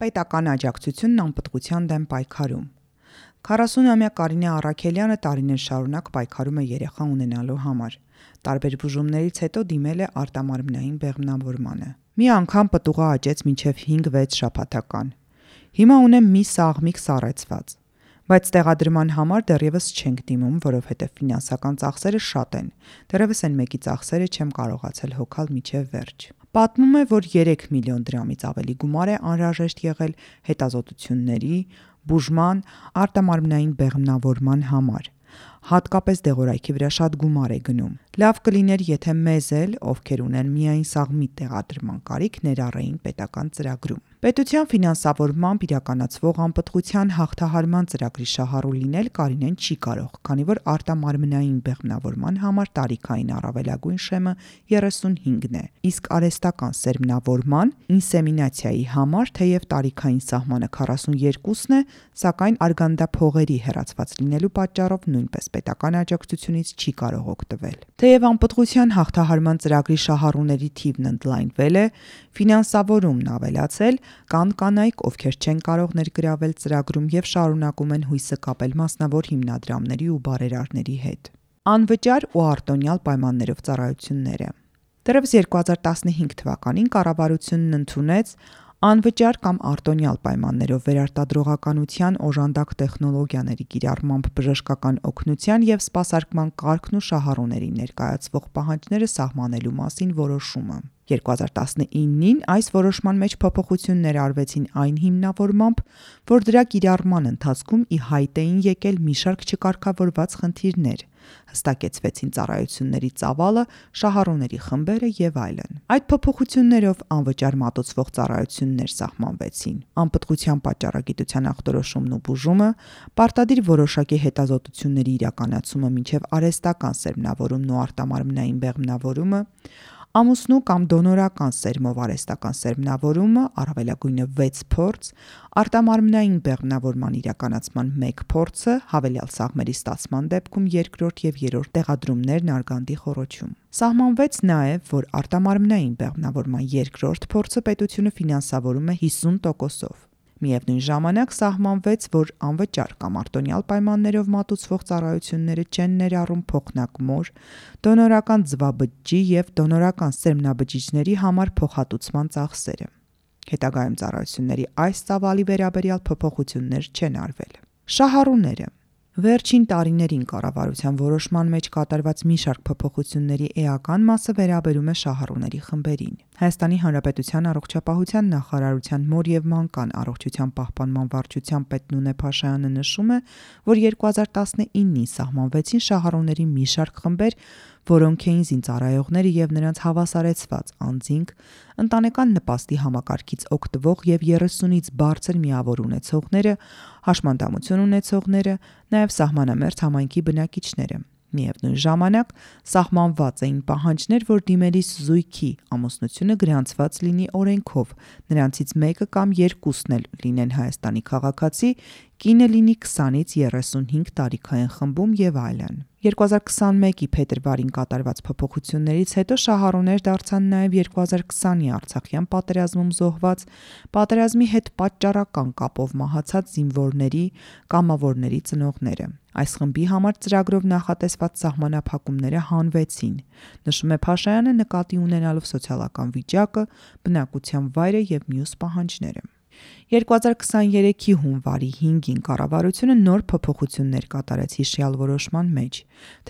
Պետական աջակցությունն անպտղության դեմ պայքարում։ 40-ամյա Կարինե Առաքելյանը տարիներ շարունակ պայքարում է երեխա ունենալու համար։ Տարբեր բուժումներից հետո դիմել է արտամարմնային բեղմնավորմանը։ Մի անգամ պտուղը աճեց մինչև 5-6 շաբաթական։ Հիմա ունեմ մի սաղմիկ սառեցված, բայց տեղադրման համար դեռևս չենք դիմում, որովհետև ֆինանսական ծախսերը շատ են։ Դեռևս այն մեկի ծախսերը չեմ կարողացել հոգալ մինչև վերջ։ Պատմում է, որ 3 միլիոն դրամից ավելի գումար է անհրաժեշտ եղել հետազոտությունների, բուժման, արտամարմնային բեղմնավորման համար։ Հատկապես դեղորայքի վրա շատ գումար է գնում։ Լավ կլիներ, եթե մեզ էլ, ովքեր ունեն միայն սաղմի տեղադրման կարիք, ներառեին պետական ծրագրում։ Պետության ֆինանսավորմամբ իրականացվող անպտղության հաղթահարման ծրագրի շահառու լինել Կարինեն չի կարող, քանի որ արտամարմնային բեղմնավորման համար տարիքային առավելագույն շեմը 35-ն է, իսկ արհեստական սերմնավորման, ինսեմինացիայի համար թեև տարիքային սահմանը 42-ն է, սակայն արգանդափողերի հեռացված լինելու պատճառով նույնպես պետական աջակցությունից չի կարող օգտվել։ Թեև անպտղության հաղթահարման ծրագրի շահառուների թիվն ընդլայնվել է, ֆինանսավորումն ավելացել, կան կանայք, ովքեր չեն կարող ներգրավել ծրագրում եւ շարունակում են հույսը կապել մասնավոր հիմնադրամների ու բարերարների հետ։ Անվճար ու արտոնյալ պայմաններով ծառայությունները։ Դեռևս 2015 թվականին կառավարությունն ընդունեց անվճար կամ արտոնյալ պայմաններով վերարտադրողականության օժանդակ տեխնոլոգիաների կիրառմամբ բժշկական օգնության եւ սպասարկման կարգն ու շահառուներին ներկայացվող պահանջները սահմանելու մասին որոշումը։ 2019-ին այս որոշման մեջ փոփոխություններ արվեցին այն հիմնավորմամբ, որ դրա կիրառման ընթացքում ի հայտ էին եկել մի շարք չկարգավորված խնդիրներ, հստակեցվեցին ծառայությունների ծավալը, շահառուների խմբերը եւ այլն։ Այդ փոփոխություններով անվճար մատուցվող ծառայություններ սահմանվեցին։ Անպտղության պատճառագիտության ախտորոշումն ու բուժումը, պարտադիր որոշակի հետազոտությունների իրականացումը մինչև արհեստական սերմնավորումն ու արտամարմնային բեղմնավորումը, ամուսնու կամ դոնորական սերմով արհեստական սերմնավորումը, առավելագույնը 6 փորձ, արտամարմնային բեղմնավորման իրականացման 1 փորձը, հավելյալ սաղմերի ստացման դեպքում 2-րդ եւ 3-րդ տեղադրումներն արգանդի խոռոչում։ Սահմանվեց նաև, որ արտամարմնային բեղմնավորման 2-րդ փորձը պետությունը ֆինանսավորում է 50%-ով։ Միևնույն ժամանակ սահմանվեց, որ անվճար կամ արտոնյալ պայմաններով մատուցվող ծառայությունները չեն ներառում փոխնակ-մոր, դոնորական ձվաբջիջի եւ դոնորական սերմնաբջիջների համար փոխհատուցման ծախսերը։ Հետագայում ծառայությունների այս ծավալի վերաբերյալ փոփոխություններ չեն արվել։ Շահառուները։ Վերջին տարիներին կառավարության որոշման մեջ կատարված մի շարք փոփոխությունների էական մասը վերաբերում է շահառուների խմբերին։ Հայաստանի Հանրապետության առողջապահության նախարարության մոր եւ մանկան առողջության պահպանման վարչության պետ Նունե Փաշայանը նշում է, որ 2019-ին սահմանվեցին շահառուների մի շարք խմբեր, որոնք էին զինծառայողները եւ նրանց հավասարեցված անձինք, ընտանեկան նպաստի համակարգից օգտվող եւ 30-ից բարձր միավոր ունեցողները, հաշմանդամություն ունեցողները, նաեւ սահմանամերձ համայնքի բնակիչները։ Միևնույն ժամանակ սահմանված էին պահանջներ, որ դիմելիս զույգի ամուսնությունը գրանցված լինի օրենքով, նրանցից մեկը կամ երկուսն էլ լինեն Հայաստանի քաղաքացի, կինը լինի 20-ից 35 տարիքային խմբում եւ այլն։ 2021-ի փետրվարին կատարված փոփոխություններից հետո շահառուներ դարձան նաև 2020-ի Արցախյան պատերազմում զոհված, պատերազմի հետ պատճառական կապով մահացած զինվորների, կամավորների ծնողները։ Այս խմբի համար ծրագրով նախատեսված սահմանափակումները հանվեցին, նշում է Փաշայանը նկատի ունենալով սոցիալական վիճակը, բնակության վայրը եւ մյուս պահանջները։ 2023-ի հունվարի 5-ին կառավարությունը նոր փոփոխություններ կատարեց հիշյալ որոշման մեջ,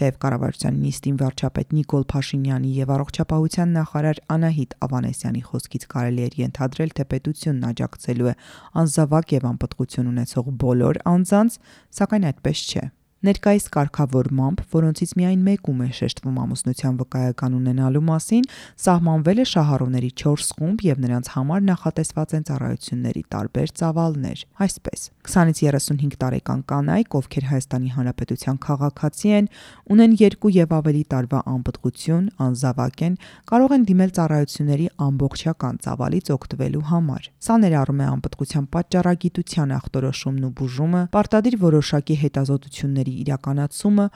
թեև կառավարության նիստին վարչապետ Նիկոլ Փաշինյանի եւ առողջապահության նախարար Անահիտ Ավանեսյանի խոսքից կարելի էր ենթադրել, թե պետությունն աջակցելու է անզավակ եւ անպտղություն ունեցող բոլոր անձանց, սակայն այդպես չէ։ Ներկայիս կարգավորմամբ, որոնցից միայն մեկում է շեշտվում ամուսնության վկայական ունենալու մասին, սահմանվել է շահառուների 4 խումբ եւ նրանց համար նախատեսված են ծառայությունների տարբեր ծավալներ։ Այսպես, 20-ից 35 տարեկան կանայք, ովքեր Հայաստանի Հանրապետության քաղաքացի են, ունեն 2 եւ ավելի տարվա անպտղություն, անզավակ են, կարող են դիմել ծառայությունների ամբողջական ծավալից օգտվելու համար։ Սա ներառում է անպտղության պատճառագիտության ախտորոշումն ու բուժումը, պարտադիր որոշակի հետազոտությունների իրականացումը,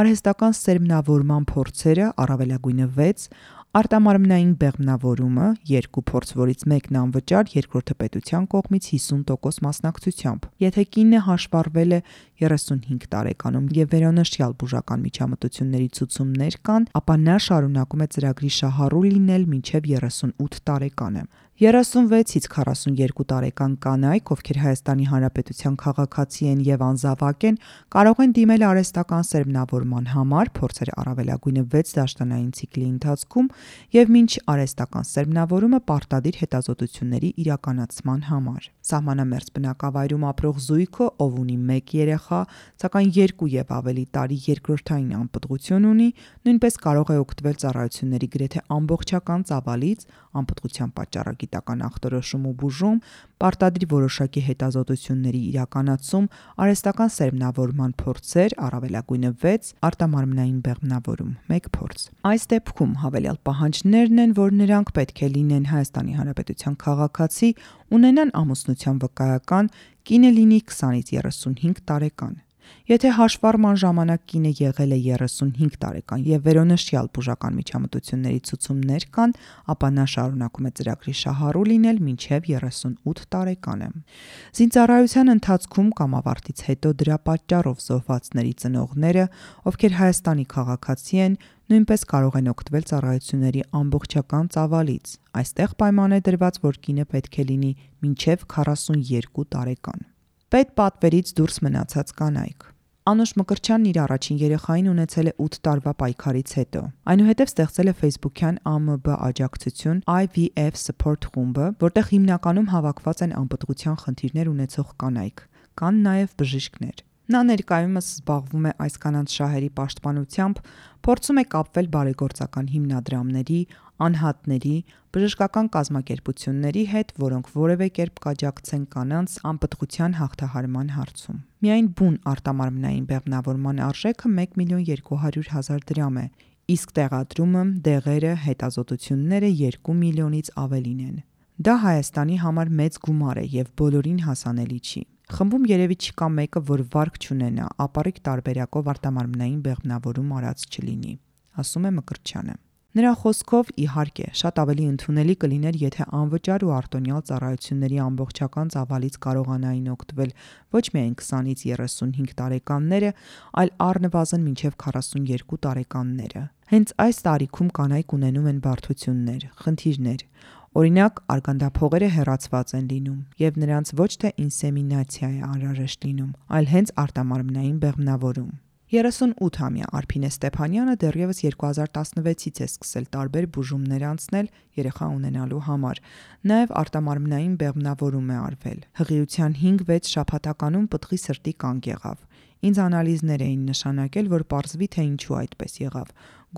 արհեստական սերմնավորման փորձերը, առավելագույնը 6, Արտամարմնային բեղմնավորումը 2 փորձ, որից մեկն անվճար, երկրորդը պետության կողմից 50% մասնակցությամբ։ Եթե կինը հաշվառվել է 35 տարեկանում եւ վերոնշյալ բուժական միջամտությունների ցուցումներ կան, ապա նա շարունակում է ծրագրի շահառու լինել մինչև 38 տարեկանը։ 36-ից 42 տարեկան կանայք, ովքեր Հայաստանի Հանրապետության քաղաքացի են եւ անզավակ են, կարող են դիմել արհեստական սերմնավորման համար, փորձել առավելագույնը 6 դաշտանային ցիկլի ընթացքում եւ մինչ արհեստական սերմնավորումը պարտադիր հետազոտությունների իրականացման համար։ Սահմանամերձ բնակավայրում ապրող զույգը, ով ունի 1 երեխա, սակայն 2 եւ ավելի տարի երկրորդային անպտղություն ունի, նույնպես կարող է օգտվել ծառայությունների գրեթե ամբողջական ծավալից, անպտղության պատճառագիտական ախտորոշում ու բուժում, պարտադիր որոշակի հետազոտությունների իրականացում, արհեստական սերմնավորման փորձեր, առավելագույնը 6, արտամարմնային բեղմնավորում 1 փորձ։ Այս դեպքում հավելյալ պահանջներն են, որ նրանք պետք է լինեն Հայաստանի Հանրապետության քաղաքացի, ունենան ամուսնության վկայական, կինը լինի 20-ից 35 տարեկան։ Եթե հաշվառման ժամանակ կինը եղել է 35 տարեկան եւ վերոնշյալ բուժական միջամտությունների ցուցումներ կան, ապա նա շարունակում է ծրագրի շահառու լինել մինչև 38 տարեկանը։ Զինծառայության ընթացքում կամ ավարտից հետո դրա պատճառով զոհվածների ծնողները, ովքեր Հայաստանի քաղաքացի են, նույնպես կարող են օգտվել ծառայությունների ամբողջական ծավալից։ Այստեղ պայման է դրված, որ կինը պետք է լինի մինչև 42 տարեկան։ Պետպատվերից դուրս մնացած կանայք։ Անուշ Մկրտչյանն իր առաջին երեխային ունեցել է 8 տարվա պայքարից հետո։ Այնուհետև ստեղծել է Facebook-յան ԱՄԲ աջակցություն IVF Support խումբը, որտեղ հիմնականում հավաքված են անպտղության խնդիրներ ունեցող կանայք, կան նաև բժիշկներ։ Նա ներկայումս զբաղվում է այս կանանց շահերի պաշտպանությամբ, փորձում է կապվել բարեգործական հիմնադրամների, անհատների, բժշկական կազմակերպությունների հետ, որոնք որևէ կերպ կաջակցեն կանանց անպտղության հաղթահարման հարցում։ Միայն բուն արտամարմնային բեղմնավորման արժեքը 1.200.000 դրամ է, իսկ տեղադրումը, դեղերը, հետազոտությունները 2 միլիոնից ավելին են։ Դա Հայաստանի համար մեծ գումար է եւ բոլորին հասանելի չի։ Խմբում երևի չկա մեկը, որ վարկ չունենա, ապառիկ տարբերակով արտամարմնային բեղմնավորում արած չլինի, ասում է Մկրտչյանը։ Նրա խոսքով, իհարկե, շատ ավելի ընդունելի կլիներ, եթե անվճար ու արտոնյալ ծառայությունների ամբողջական ծավալից կարողանային օգտվել ոչ միայն 20-ից 35 տարեկանները, այլ առնվազն մինչև 42 տարեկանները։ Հենց այս տարիքում կանայք ունենում են բարդություններ, խնդիրներ։ Օրինակ, արգանդափողերը հեռացված են լինում, եւ նրանց ոչ թե ինսեմինացիա է անհրաժեշտ լինում, այլ հենց արտամարմնային բեղմնավորում։ 38-ամյա Արփինե Ստեփանյանը դեռևս 2016-ից է սկսել տարբեր բուժումներ անցնել երեխա ունենալու համար։ Նաև արտամարմնային բեղմնավորում է արվել։ Հղիության 5-6 շաբաթականում պտղի սրտի կանգ եղավ։ Ինձ անալիզներ էին նշանակել, որ պարզվի, թե ինչու այդպես եղավ։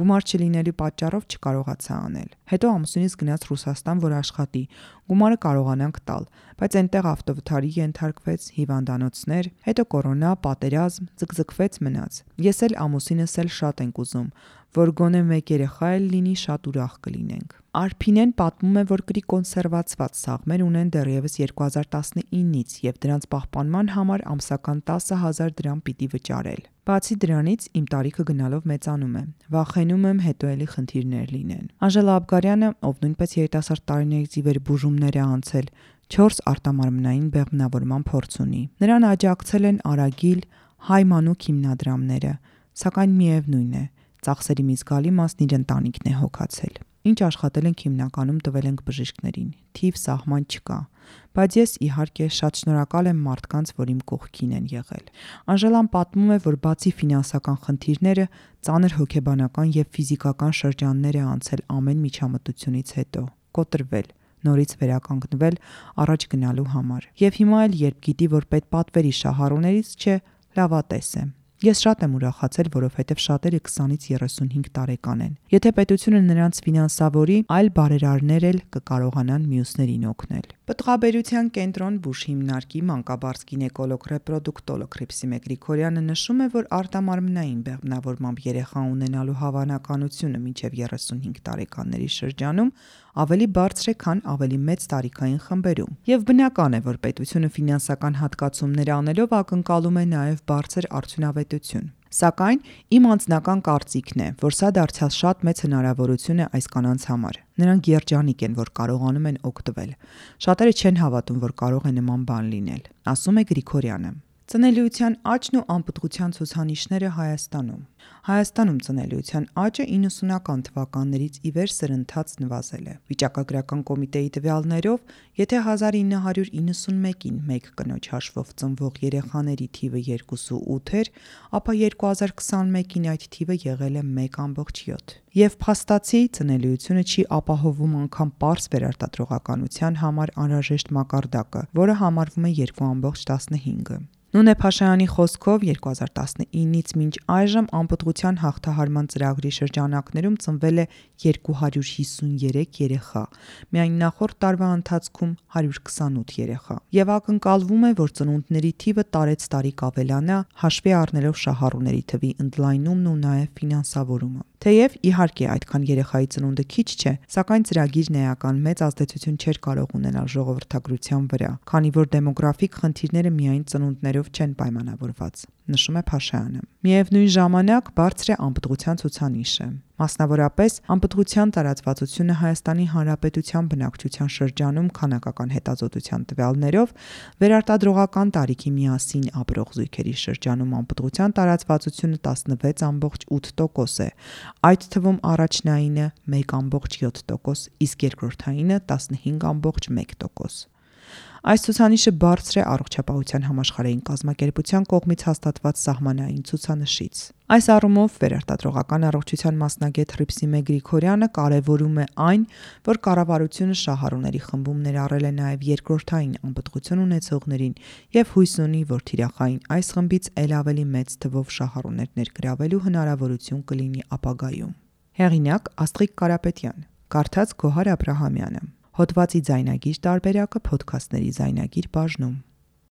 Գումար չլինելու պատճառով չկարողացա անել։ Հետո ամուսինս գնաց Ռուսաստան, որ աշխատի։ Գումարը կարողանանք տալ, բայց այնտեղ ավտովթարի ենթարկվեց, հիվանդանոցներ, հետո կորոնա, պատերազմ, ձգձգվեց մնաց։ Ես էլ ամուսինս էլ շատ ենք ուզում, որ գոնե 1 երեխա էլ լինի, շատ ուրախ կլինենք։ Արփինեն պատմում է, որ կրի կոնսերվացված սաղմեր ունեն դեռևս 2019-ից եւ դրանց պահպանման համար ամսական 10,000 դրամ պիտի վճարել։ Բացի դրանից իմ տարիքը գնալով մեծանում է։ Վախենում եմ հետո էլի խնդիրներ լինեն։ Անժելա Աբգարյանը, ով նույնպես երիտասարդ տարիներից ի վեր բուժումներ է անցել, 4 արտամարմնային բեղմնավորման փորձ ունի։ Նրան աջակցել են Արագիլ, Հայ մանուկ հիմնադրամները, սակայն միևնույն է, ծախսերի մի զգալի մասն իր ընտանիքն է հոգացել։ Ինչ աշխատել ենք հիմնականում տվել ենք բժիշկներին, թիվ սահման չկա, բայց ես իհարկե շատ շնորհակալ եմ մարդկանց, որ իմ կողքին են եղել։ Անժելան պատմում է, որ բացի ֆինանսական խնդիրները, ծանր հոգեբանական եւ ֆիզիկական շրջաններ է անցել ամեն միջամտությունից հետո, կոտրվել, նորից վերականգնվել առաջ գնալու համար։ Եվ հիմա էլ երբ գիտի, որ պետպատվերի շահառուներից չէ, լավատես է։ Ես շատ եմ ուրախացել, որովհետև շատերը 20-ից 35 տարեկան են։ Եթե պետությունը նրանց ֆինանսավորի, այլ բարերարներ էլ կկարողանան մյուսներին օգնել։ Պտղաբերության կենտրոն բուժ հիմնարկի մանկաբարձ գինեկոլոգ ռեպրոդուկտոլոգ Հռիփսիմե Գրիգորյանը նշում է, որ արտամարմնային բեղմնավորմամբ երեխա ունենալու հավանականությունը մինչև 35 տարեկանների շրջանում ավելի բարձր է, քան ավելի մեծ տարիքային խմբերում։ Եվ բնական է, որ պետությունը ֆինանսական հատկացումներ անելով ակնկալում է նաև բարձր արդյունավետություն։ Սակայն իմ անձնական կարծիքն է, որ սա դարձյալ շատ մեծ հնարավորություն է այս կանանց համար։ Նրանք երջանիկ են, որ կարողանում են օգտվել։ Շատերը չեն հավատում, որ կարող է նման բան լինել, ասում է Գրիգորյանը։ Ծնելիության աճն ու անպտղության ցուցանիշները Հայաստանում։ Հայաստանում ծնելիության աճը 90-ական թվականներից ի վեր սրընթաց նվազել է։ Վիճակագրական կոմիտեի տվյալներով, եթե 1991-ին 1 կնոջ հաշվով ծնվող երեխաների թիվը 2.8 էր, ապա 2021-ին այդ թիվը եղել է 1.7։ Եվ փաստացի ծնելիությունը չի ապահովում անգամ պարզ վերարտադրողականության համար անհրաժեշտ մակարդակը, որը համարվում է 2.15։ Նունե Փաշայանի խոսքով 2019-ից մինչ այժմ անպտղության հաղթահարման ծրագրի շրջանակներում ծնվել է 253 երեխա, միայն նախորդ տարվա ընթացքում 128 երեխա, եւ ակնկալվում է, որ ծնունդների թիվը տարեցտարի կավելանա, հաշվի առնելով շահառուների թվի ընդլայնումն ու նաեւ ֆինանսավորումը։ Թեև իհարկե այդքան երեխայի ծնունդը քիչ չէ, սակայն ծրագիրն էական մեծ ազդեցություն չէր կարող ունենալ ժողովրդագրության վրա, քանի որ դեմոգրաֆիկ խնդիրները միայն ծնունդներով չեն պայմանավորված, նշում է Փաշայանը։ Միևնույն ժամանակ բարձր է անպտղության ցուցանիշը։ Մասնավորապես, անպտղության տարածվածությունը Հայաստանի Հանրապետության բնակչության շրջանում քանակական հետազոտության տվյալներով վերարտադրողական տարիքի միասին ապրող զույգերի շրջանում անպտղության տարածվածությունը 16.8% է, այդ թվում առաջնայինը 1.7%, իսկ երկրորդայինը 15.1%։ Այս ցուցանիշը բարձր է առողջապահության համաշխարհային կազմակերպության կողմից հաստատված սահմանային ցուցանշից։ Այս առումով վերարտադրողական առողջության մասնագետ Հռիփսիմե Գրիգորյանը կարևորում է այն, որ կառավարությունը շահառուների խմբում ներառել է նաև երկրորդային անպտղություն ունեցողներին եւ հույս ունի, որ թիրախային այս խմբից ել ավելի մեծ թվով շահառուներ ներգրավելու հնարավորություն կլինի ապագայում։ Հեղինակ Աստղիկ Կարապետյան, կարդաց Գոհար Աբրահամյանը։ Հոդվացի ձայնագիր տարբերակը Փոդքասթների ձայնագիր բաժնում։